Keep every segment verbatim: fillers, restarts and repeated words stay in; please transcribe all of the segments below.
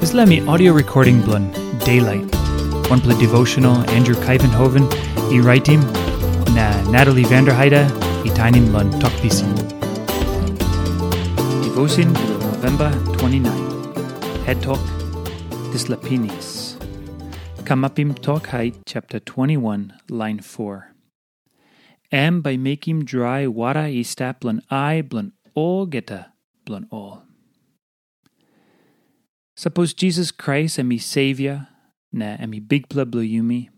Dispela mi audio recording bilong Daylight. Wanpela devotional Andrew Kaivenhoven i raitim, na Natalie Vanderheide i tainim long Tok Pisin. Devotion bilong November twenty-nine. Head Talk, Dispela Pinis. Kamapim Tok Hait chapter twenty-one, line four. Em bai mekim drai wara i stap long ai bilong olgeta bilong ol. Sapos Jisas Krais em i Savior, na em i Bikpela bilong yumi,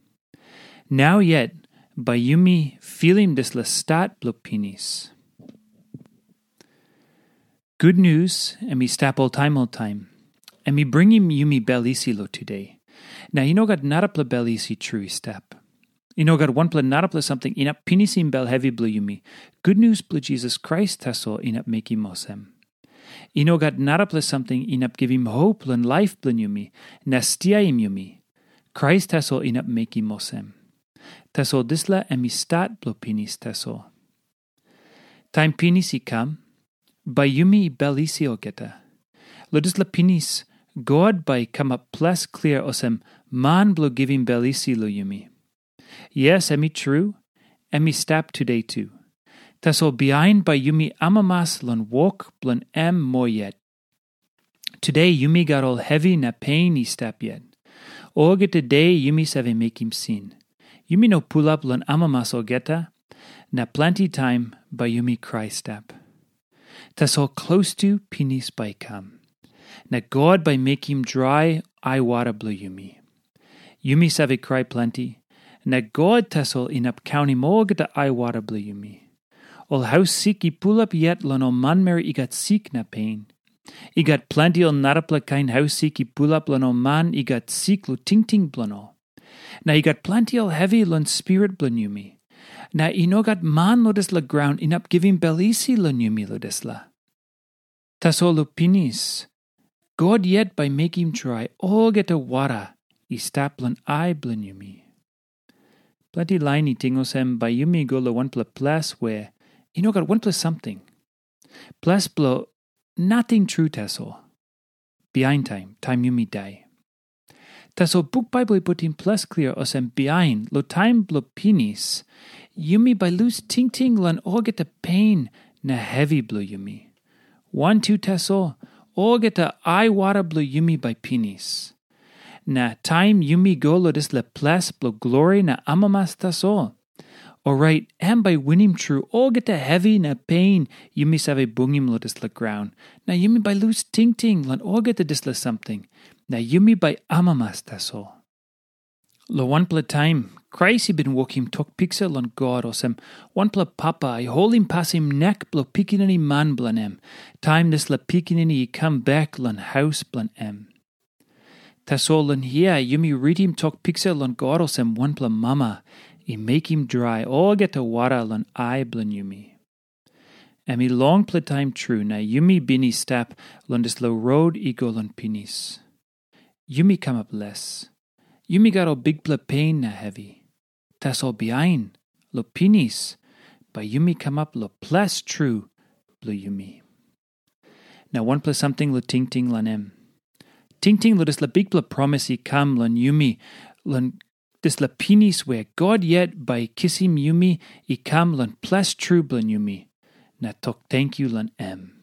nau yet bai yumi filim dispela stat bilong pinis. Gutnius em i stap oltaim oltaim. Em i bringim yumi bel isi long tude. Na i no gat narapela bel isi tru i stap. I no gat wanpela narapela samting inap pinisim bel hevi bilong yumi. Gutnius bilong Jisas Krais tasol inap mekim olsem. I no gat narapela samting inap givim hop long laip bilong yumi, na stiaim yumi. Krais tasol inap mekim olsem. Tasol dispela em i stat bilong pinis tasol. Taim pinis i kam, bai yumi bel isi olgeta. Long dispela pinis, God bai i kamap ples klia olsem man bilong givim bel isi long yumi. Yes, em i tru, em i stap tude tu. Tasol bihain bai yumi amamas long wok bilong em moa yet. Tude yumi gat ol hevi na pein i stap yet. Olgeta de yumi save mekim sin. Yumi no pulap long amamas olgeta, na planti taim bai yumi krai stap. Tasol klostu pinis bai i kam, na God bai mekim drai aiwara bilong yumi. Yumi save krai planti, na God tasol inap kaunim olgeta aiwara bilong yumi. Ol haus sik i pulap yet long ol manmeri i gat sik na pein. I gat planti ol narapela kain haus sik i pulap long ol man i gat sik long tingting bilong ol. Na i gat planti ol hevi long spirit bilong yumi. Na i no gat man long dispela graun inap givim bel isi long yumi long dispela. Tasol long pinis, God yet bai mekim drai olgeta wara i stap long ai bilong yumi. Planti lain i ting olsem bai yumi go long wanpela ples we i no gat wanpela samting. Ples bilong nating tru tasol. Bihain taim, taim yumi dai. Tasol buk Baibel i putim ples klia olsem bihain long taim bilong pinis, yumi bai lus tingting long olgeta pein na hevi bilong yumi. Wantu tasol, olgeta aiwara bilong yumi bai pinis. Na taim yumi go long dispela ples bilong glori na amamas tasol, orait em bai winim tru olgeta hevi na pein yumi save bungim long dispela graun, na yumi bai lus tingting long olgeta dispela samting, na yumi bai amamas tasol. Long wanpela taim, Krais i bin wokim tok piksa long God olsem wanpela papa i holim pasim nek bilong pikinini man bilong em, taim dispela pikinini i kam bek long haus bilong em. Tasol long hia yumi ritim tok piksa long God olsem wanpela mama i mekim drai olgeta wara long ai bilong yumi. Em i longpela taim tru na yumi bin i stap long dispela rot i go long pinis. Yumi kamap les. Yumi gat ol bikpela pein na hevi. Tasol bihain, long pinis, bai yumi kamap long ples tru bilong yumi. Na wanpela samting long tingting long em. Tingting long dispela bikpela promis i kam long yumi, long dispela pinis we God yet bai i kisim yumi i kam long ples tru bilong yumi, na tok tenkyu long em.